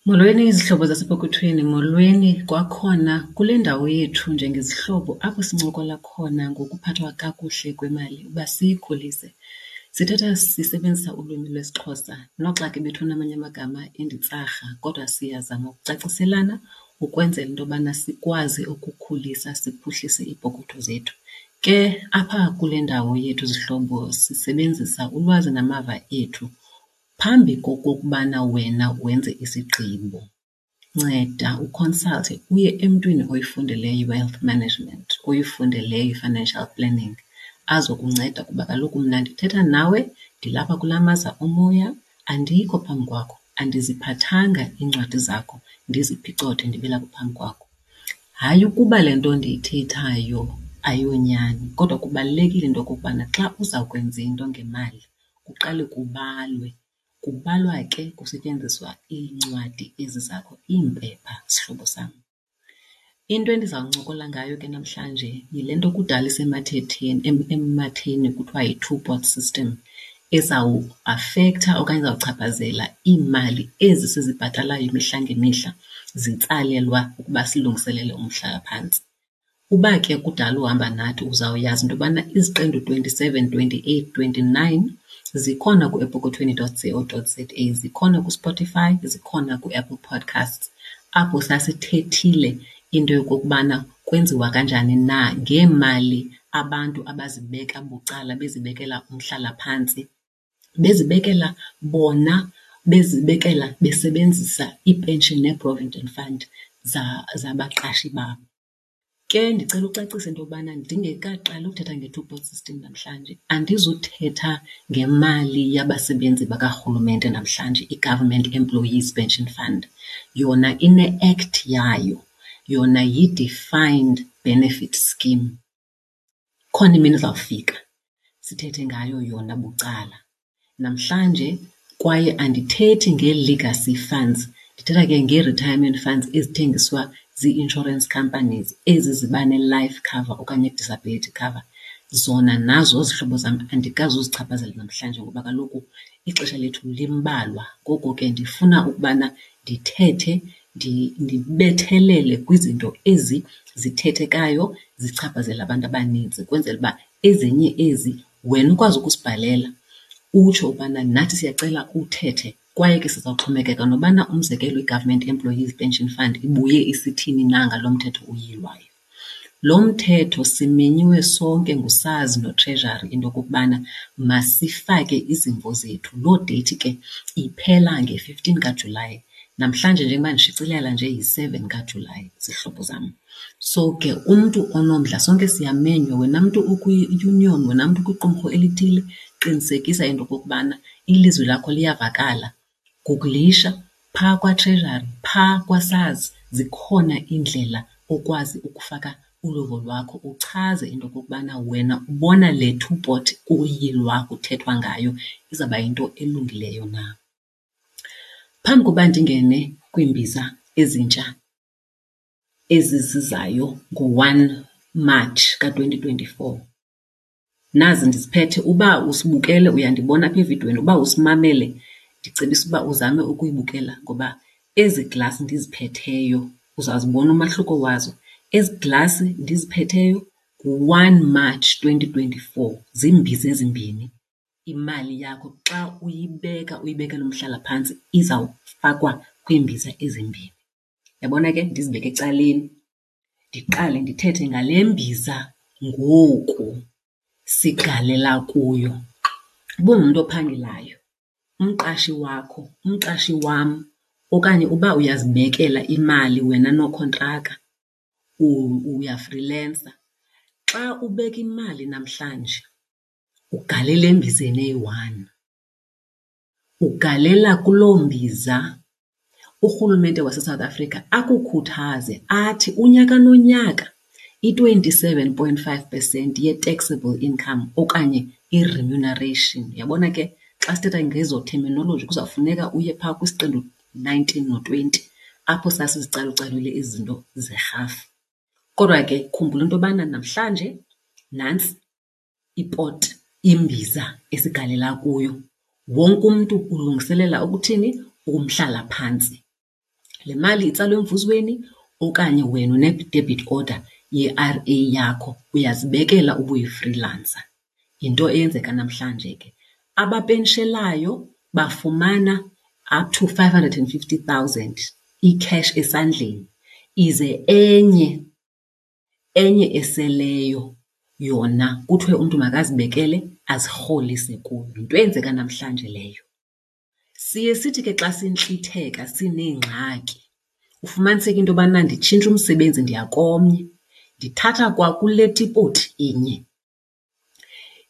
Molweni izihlobo zasepokothweni, molweni kwakhona kule ndawo yethu njengezihlobo apho sincokola khona ngokuphathwa kakuhle kwemali uba siyikhulise. Sithetha sisebenzisa ulwimi lwesiXhosa noxa ke bethuna amanye amagama inditsarha, kodwa siyazama ukucaciselana ukwenzela into yobana sikwazi ukukhulisa siphuhlise iipokotho zethu. Ke apha kule ndawo yethu zihlobo sisebenzisa ulwazi namava ethu. Phambi kokokubana wena wenze isigqibo nceda ukhonsalte uye emntwini oyifundeleyo i-wealth management, oyifundeleyo i-financial planning azokunceda kuba kaloku mna ndithetha nawe ndilapha kulaa maza omoya andikho phambi kwakho, andiziphathanga iincwadi zakho ndiziphicothe ndibe lapha phambi kwakho. Hayi ukuba le nto ndiyithethayo ayonyani kodwa kubalulekile into yokokubana xa uza kwenza into ngemali kuqale kubalwe. Kubalwa ke kusetyenziswa iincwadi ezi zakho, iimpepha sihlobo sam. Into endizawuncokola ngayo ke namhlanje yile nto kudala isemathetheni, ematheni kuthiwa yi-two-pot system ezawuafektha okanye ezawuchaphazela iimali ezi sizibhatalayo imihla ngemihla zitsalelwa ukuba silungiselele umhlalaphantsi. Uba ke kudala uhamba nathi uzawuyazi into yobana iziqendu 27, 28, 29 zikhona kuepokothweni dot co dot za, zikhona kuSpotify, zikhona kuApple Podcasts, apho sasithethile into yokokubana kwenziwa kanjani na ngeemali abantu abazibeka bucala bezibekela umhlalaphantsi, bezibekela bona, bezibekela besebenzisa iipenshini nee-provident fund zabaqashi babo. Ke ndicela ucacisa into yobana ndingekaqali uthetha nge-two pot system namhlanje andizuthetha ngemali yabasebenzi bakarhulumente namhlanje, i-Government Employees Pension Fund. Yona ine-act yayo, yona yi-defined benefit scheme. Ikhona imini ezawufika sithethe ngayo yona bucala. Namhlanje kwaye andithethi ngee-legacy funds, ndithetha ke ngee-retirement funds ezithengiswa zii-insurance companies ezi ziba ne-life cover okanye i-disability cover. Zona nazo zihlobo zam andikazuzichaphazela namhlanje ngoba kaloku ixesha lethu limbalwa. Ngoko ke ndifuna ukubana ndithethe ndibethelele kwizinto ezi zithethekayo zichaphazela abantu abanintsi ukwenzela uba ezinye ezi wena ukwazi ukusibhalela utsho ubana nathi siyacela uthethe. Kwaye ke sizawuxhomekeka nobana umzekelo i-Government Employees Pension Fund ibuye isithini na ngalo mthetho uyilwayo. Lo mthetho simenyiwe sonke nguSARS noTreasury into yokokubana masifake izimvo zethu. Loo deyithi ke iphela nge-15 kaJulayi. Namhlanje njengoba ndishicilela nje yi-7 kaJulayi, zihlobo zam. So ke umntu onomdla sonke siyamenywa, wena mntu ukwi-union, wena mntu ukwiqumrhu elithile, qinisekisa into yokokubana ilizwi lakho liyavakala. Gugulisha phaa kwaTreasury, phaa kwaSARS, zikhona iindlela okwazi ukufaka uluvo lwakho uchaze into yokokubana wena ubona le two pot kuyilwa kuthethwa ngayo izawuba yinto elungileyo na. Phambi koba ndingene kwiimbiza ezintsha ezi zizayo ngo-one March ka-twenty twenty-four, nazi ndiziphethe. Uba usibukele uyandibona apha evidweni, uba usimamele ndicebisa uba uzame ukuyibukela ngoba ezi glasi ndiziphetheyo uzawuzibona umahluko wazo. Ezi glasi ndiziphetheyo ngu-one March twenty twenty-four, ziimbiza ezimbini. Imali yakho xa uyibeka uyibekela umhlalaphantsi izawufakwa kwiimbiza ezimbini. Uyabona ke ndizibeke ecaleni ndiqale ndithethe ngale mbiza ngoku sigalela kuyo. Uba ungumntu ophangelayo, umqashi wakho, umqashi wam okanye uba uyazibekela imali wena nokhontraka, uyafrilensa, xa ubeka imali namhlanje ugalela embizeni eyi-one. Ugalela kuloo mbiza urhulumente waseSouth Africa akukhuthaze athi unyaka nonyaka i-27.5 percent ye-taxable income okanye i-remuneration. Uyabona ke xa sithetha ngezo terminology kuzawufuneka uye phaa kwisiqendu 19 no-20 apho sasizicalucalule ezi zinto zerhafu. Kodwa ke khumbula into yobana namhlanje nantsi ipoti, imbiza esigalela kuyo. Wonke umntu ulungiselela ukuthini? Umhlalaphantsi. Le mali itsalwa emvuzweni okanye wena une-debit order ye-R_A yakho, uyazibekela ubuyi-freelancer. Yinto eyenzeka namhlanje ke. Abapenshelayo bafumana up to 550,000 i-cash esandleni, ize enye, enye eseleyo yona kuthiwe umntu makazibekele azirholise kuyo. Yinto eyenzeka namhlanje leyo. Siye sithi ke xa sintlitheka sineengxaki ufumaniseke into yobana nditshintsha umsebenzi ndiya komnye, ndithatha kwakule tipoti inye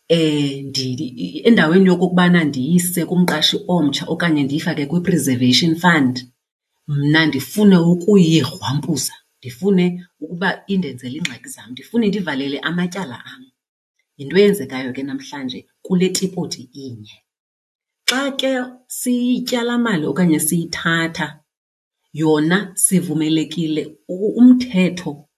endaweni yokokubana ndiyise kumqashi omtsha okanye ndiyifake kwi-preservation fund, mna ndifune ukuyigrwampuza, ndifune ukuba indenzele iingxaki zam, ndifune indivalele amatyala am. Yinto eyenzekayo ke namhlanje kule tipoti inye. Xa ke siyitya laa mali okanye siyithatha yona sivumelekile, umthetho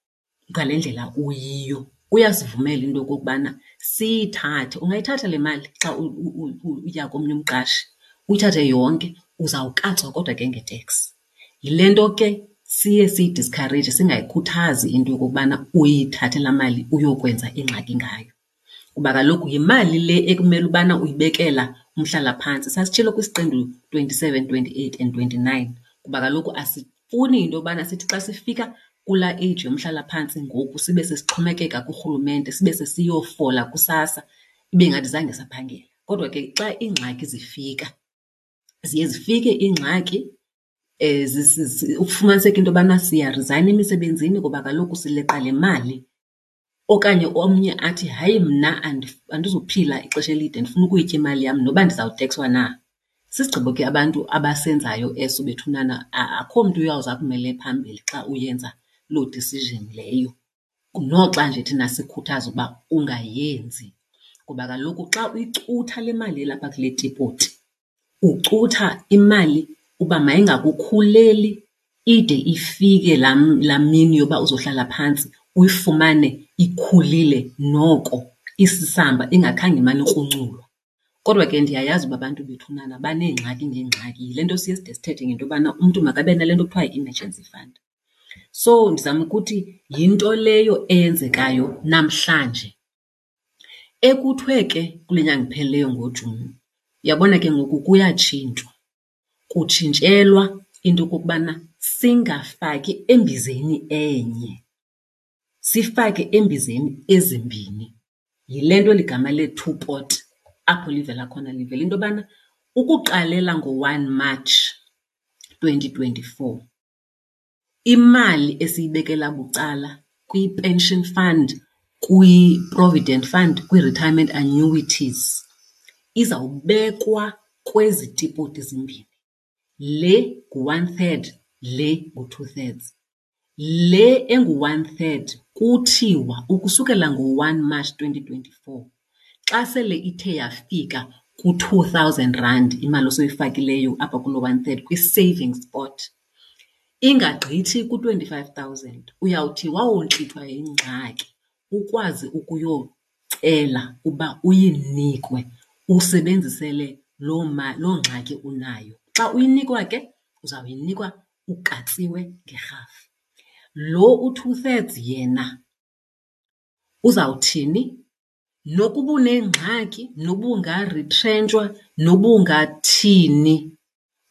ngale ndlela uyiyo uyasivumela into yokokubana siyithathe. Ungayithatha le mali xa uya komnye umqashi, uyithathe yonke, uzawukatswa kodwa ke nge-tax. Yile nto ke siye siyidiskhareyije, singayikhuthazi into yokokubana uyithathe laa mali uyokwenza ingxaki ngayo. Kuba kaloku yimali le ekumele ubana uyibekela umhlalaphantsi. Sasitshilo kwisiqendu 27, 28 and 29 kuba kaloku asifuni into yobana sithi xa sifika kulaa age yomhlalaphantsi ngoku sibe sesixhomekeka kurhulumente, sibe sesiyofola kuSASSA ibe ngathi zange saphangela. Kodwa ke xa iingxaki zifika, ziye zifike iingxaki ufumaniseke into yobana siyarizayina emisebenzini kuba kaloku sileqa le mali. Okanye omnye athi, hayi mna andizuphila ixesha elide ndifuna ukuyitya imali yam noba ndizawutekswa na. Sisigqibo ke abantu abasenzayo eso bethunana, akho mntu uyawuze akumele phambili xa uyenza loo decision leyo. Noxa nje thina sikhuthaza ukuba ungayenzi kuba kaloku xa uyicutha le mali ilapha kule tipoti, ucutha imali uba mayingakukhuleli ide ifike laa laa mini yoba uzohlala phantsi uyifumane ikhulile noko isisamba ingakhange imane ikrunculwa. Kodwa ke ndiyayazi uba abantu bethunana baneengxaki ngeengxaki, yile nto siye side sithethe ngento yobana umntu makabe nale nto kuthiwa yi-emergency fund. So ndizama ukuthi yinto leyo eyenzekayo namhlanje. Ekuthiwe ke kule nyanga iphelileyo ngoJuni, uyabona ke ngoku kuyatshintshwa. Kutshintshelwa into yokokubana singafaki embizeni enye, sifake embizeni ezimbini. Yile nto eli gama le-two pot apho livela khona, livela into yobana ukuqalela ngo-one March 2024, imali esiyibekela bucala kwi-pension fund, kwi-provident fund, kwi-retirement annuities izawubekwa kwezi tipoti zimbini. Le ngu-one third, le ngu-two thirds. Le engu-one third kuthiwa ukusukela ngo-one March 2024 xa sele ithe yafika ku-2,000 rand imali osoyifakileyo apha kuloo one third kwi-savings pot, ingagqithi ku-25,000, uyawuthi wawontlithwa yingxaki ukwazi ukuyocela uba uyinikwe usebenzisele loo loo ngxaki unayo. Xa uyinikwa ke uzawuyinikwa ukatsiwe ngerhafu. Lo u-two thirds yena uzawuthini? Nokuba unengxaki, noba ungarithrentshwa, noba ungathini,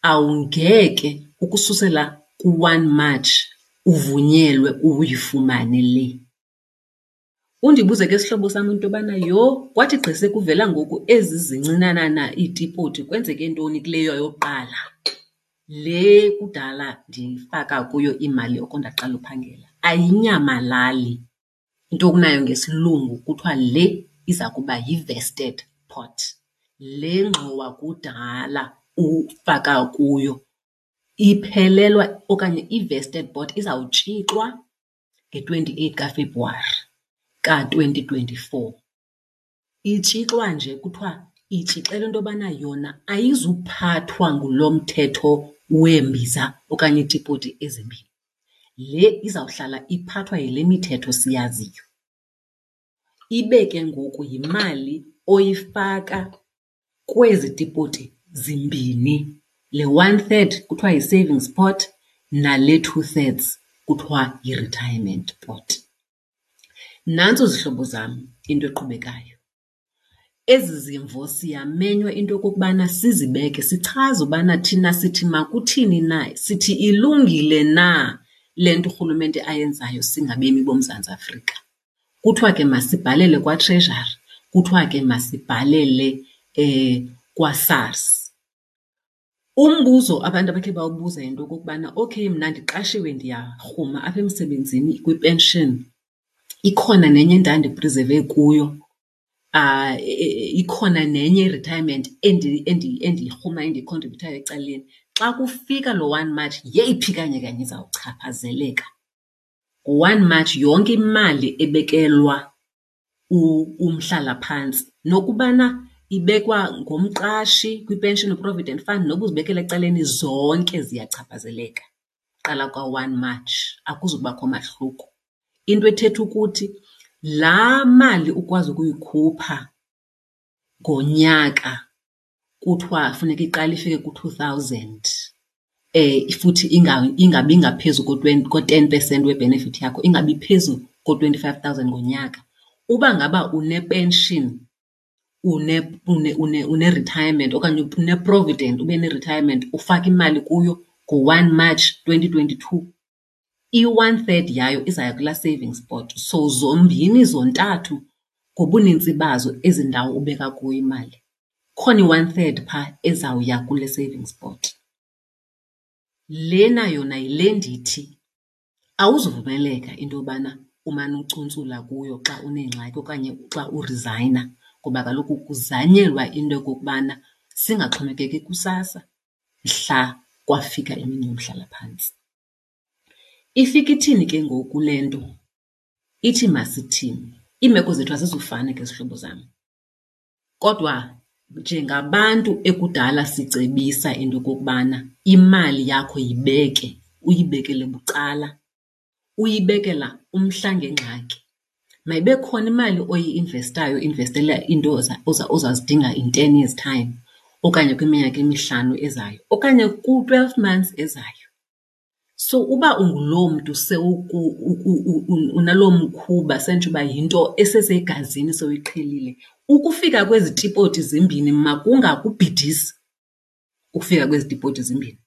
awungeke ukususela ku-one March uvunyelwe uyifumane le. Undibuze ke sihlobo sam into yobana yho, kwathi gqi sekuvela ngoku ezi zincinanana iitipoti kwenzeke ntoni kuleya yokuqala? Le kudala ndifaka kuyo imali oko ndaqala uphangela. Ayinyamalali, into okunayo ngesilungu kuthiwa le iza kuba yi-vested pot. Le ngxowa kudala ufaka kuyo iphelelwa okanye i-vested pot izawutshixwa nge-28 kaFebruwari ka-2024. Itshixwa nje kuthiwa itshixelwa into yobana yona ayizuphathwa ngulo mthetho weembiza okanye iitipoti ezimbini. Le izawuhlala iphathwa yile mithetho siyaziyo. Ibe ke ngoku yimali oyifaka kwezi tipoti zimbini, le one third kuthiwa yi-savings pot nale 2/3 kuthiwa yi-retirement pot. Nantso zihlobo zam into eqhubekayo. Ezi zimvo siyamenywa into yokokubana sizibeke sichaze ubana thina sithi makuthini na, sithi ilungile na le nto urhulumente ayenzayo singabemi boMzantsi Afrika. Kuthiwa ke masibhalele kwaTreasury, kuthiwa ke masibhalele kwaSARS. Umbuzo abantu abakhe bawubuza yinto yokokubana okay mna ndiqashiwe ndiyarhuma apha emsebenzini kwi-pension, ikhona nenye endandiprizeve kuyo, ikhona nenye i-retirement endiyirhumayo endiyikhontribhuthayo ecaleni. Xa kufika lo one March yeyiphi kanye kanye izawuchaphazeleka? Ngo-one March yonke imali ebekelwa umhlalaphantsi nokubana ibekwa ngumqashi kwi-pension provident fund noba uzibekela ecaleni, zonke ziyachaphazeleka qala kwa-one March, akuzubakho mahluko. Into ethetha ukuthi laa mali ukwazi ukuyikhupha ngonyaka kuthiwa funeka iqale ifike ku-two thousand futhi ingabi ngaphezu ko-ten percent we-benefit yakho, ingabi phezu ko-25 thousand ngonyaka. Uba ngaba une-pension, une-retirement okanye une-provident ube ne-retirement ufake imali kuyo ngo-one March 2022, i-one third yayo izawuya kulaa savings pot. So zombini zontathu ngobunintsi bazo ezi ndawo ubeka kuyo imali, kukhona i-one third phaa ezawuya kule savings pot. Lena yona yile ndithi awuzuvumeleka into yobana umane ucuntsula kuyo xa uneengxaki okanye xa urizayina ngoba kaloku kuzanyelwa into yokokubana singaxhomekeki kuSASSA mhla kwafika imini yomhlalaphantsi. Ifika ithini ke ngoku le nto? Ithi masithini? Iimeko zethu azizufana ke zihlobo zam. Kodwa njengabantu ekudala sicebisa into yokokubana imali yakho yibeke, uyibekele bucala, uyibekela umhla ngengxaki. Mayibe khona imali oyi-investayo uinvestela iinto ozazidinga in 10 years time okanye kwiminyaka emihlanu ezayo okanye ku-12 months ezayo. So uba unguloo mntu unaloo mkhuba senditsho uba yinto esesegazini sewuyiqhelile, ukufika kwezi tipoti zimbini makungakubhidisi ukufika kwezi tipoti zimbini.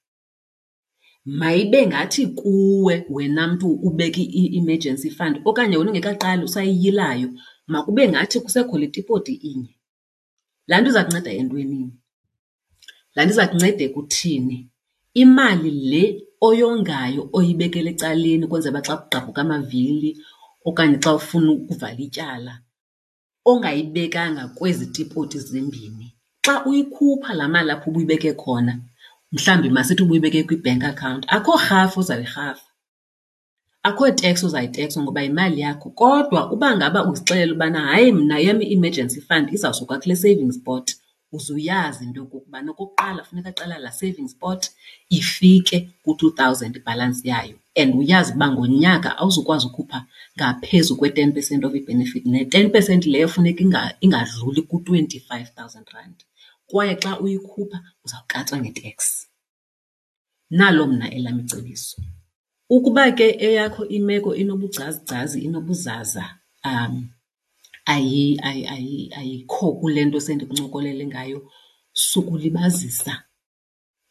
Mayibe ngathi kuwe wena mntu ubeka i-emergency fund okanye wena ungekaqali usayiyilayo, makube ngathi kusekho le tipoti inye. Laa nto iza kunceda entwenini? Laa nto iza kunceda ekuthini imali le oyongayo oyibekela ecaleni ukwenzela uba xa kugqabhuka amavili okanye xa ufuna ukuvala ityala ongayibekanga kwezi tipoti zimbini, xa uyikhupha laa mali apho ubuyibeke khona, mhlawumbi masithi ubuyibeke kwi-bank account, akho rhafu ozayirhafa. Akho tax uzayitekswa ngoba yimali yakho. Kodwa uba ngaba uzixelele ubana hayi mna eyam i-emergency fund izawusuka kule savings pot, uze uyazi into yokokubana okokuqala funeka kuqala laa savings pot ifike ku-two thousand ibhalansi yayo and uyazi uba ngonyaka awuzukwazi ukhupha ngaphezu kwe-ten percent of i-benefit, ne-ten percent leyo funeka ingadluli ku-25 thousand rand. Kwaye xa uyikhupha uzawukatswa nge-tax. Nalo mna elam icebiso. Ukuba ke eyakho imeko inobugcazigcazi, inobuzaza, ayikho kule nto sendikuncokolele ngayo, sukulibazisa,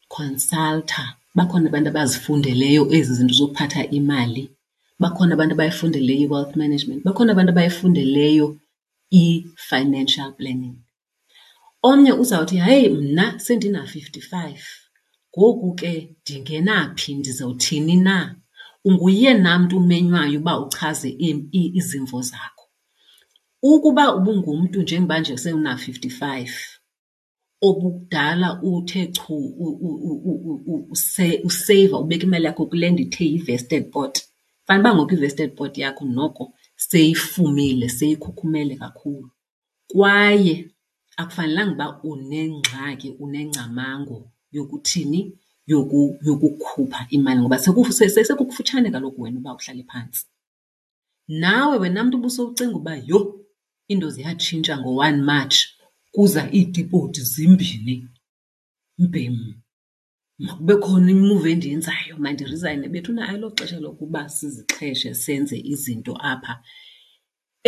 khonsaltha. Bakhona abantu abazifundeleyo ezi zinto zokuphatha imali, bakhona abantu abayifundeleyo i-wealth management, bakhona abantu abayifundeleyo i-financial planning. Omnye uzawuthi, hayi mna sendina-55 ngoku ke ndingena phi, ndizawuthini na? Unguyena mntu umenywayo uba uchaze izimvo zakho. Ukuba ubungumntu njengoba nje sewuna-55 obukudala uthe chu useyiva ubeka imali yakho kule ndithe yi-vested pot, fanuba ngoku i-vested pot yakho noko seyifumile, seyikhukhumele kakhulu. Kwaye akufanelanga uba unengxaki, unengcamango yokuthini, yokukhupha imali ngoba sekukufutshane kaloku wena uba uhlale phantsi. Nawe wena mntu ubusowucinga uba yho iinto ziyatshintsha ngo-one March kuza iitipoti zimbini, mbhem. Makube khona imuvi endiyenzayo, mandirizayine. Bethuna ayiloxesha lokuba sizixheshe senze izinto apha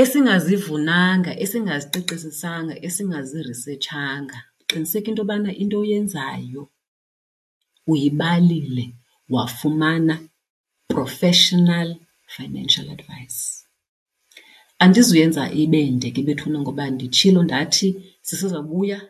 esingazivunanga, esingaziqiqisisanga, esingaziresetshanga. Qiniseka into yobana into oyenzayo uyibalile wafumana professional financial advice. Andizuyenza ibe nde ke bethuna ngoba nditshilo ndathi sisezawubuya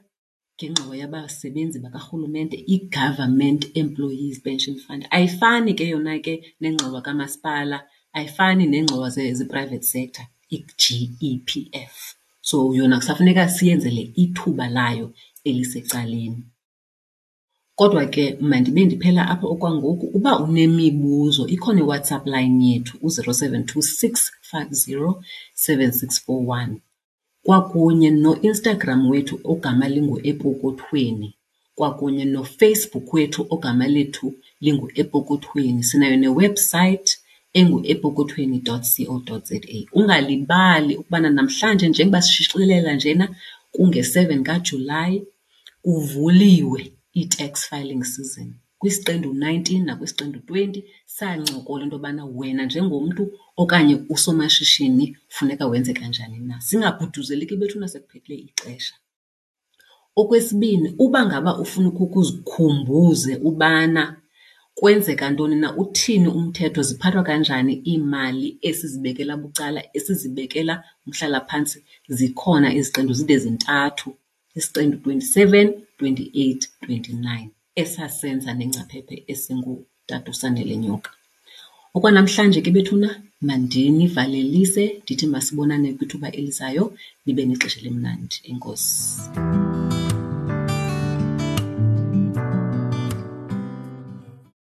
ngengxowa yabasebenzi bakarhulumente, iGovernment Employees Pension Fund. Ayifani ke yona ke nengxowa kamasipala, ayifani neengxowa ze-private sector, i-G_E_P_F. So yona kusafuneka siyenzele ithuba layo elisecaleni. Kodwa ke mandibe ndiphela apha okwangoku. Uba unemibuzo ikhona iWhatsApp line yethu u-072 650 7641 kwakunye noInstagram wethu ogama linguEpokothweni kwakunye noFacebook wethu ogama lethu linguEpokothweni. Sinayo newebhusayithi enguepokothweni dot co dot za. Ungalibali ukubana namhlanje njengoba sishicilela njena kunge-seven kaJulayi kuvuliwe i-tax filing season. Kwisiqendu 19 nakwisiqendu 20 sancokola into yobana wena njengomntu okanye usomashishini funeka wenze kanjani na. Singabhuduzeli ke bethuna sekuphelile ixesha. Okwesibini, uba ngaba ufuna ukhe uzikhumbuze ubana kwenzeka ntoni na, uthini umthetho, ziphathwa kanjani iimali esizibekela bucala, esizibekela umhlalaphantsi, zikhona iziqendu zide zintathu. Isiqendu 27, 28, 29 esasenza nengcaphephe esingutata uSanele Nyoka. Okwanamhlanje ke bethuna mandinivalelise ndithi masibonane kwithuba elizayo, nibe nexesha elimnandi. Enkosi.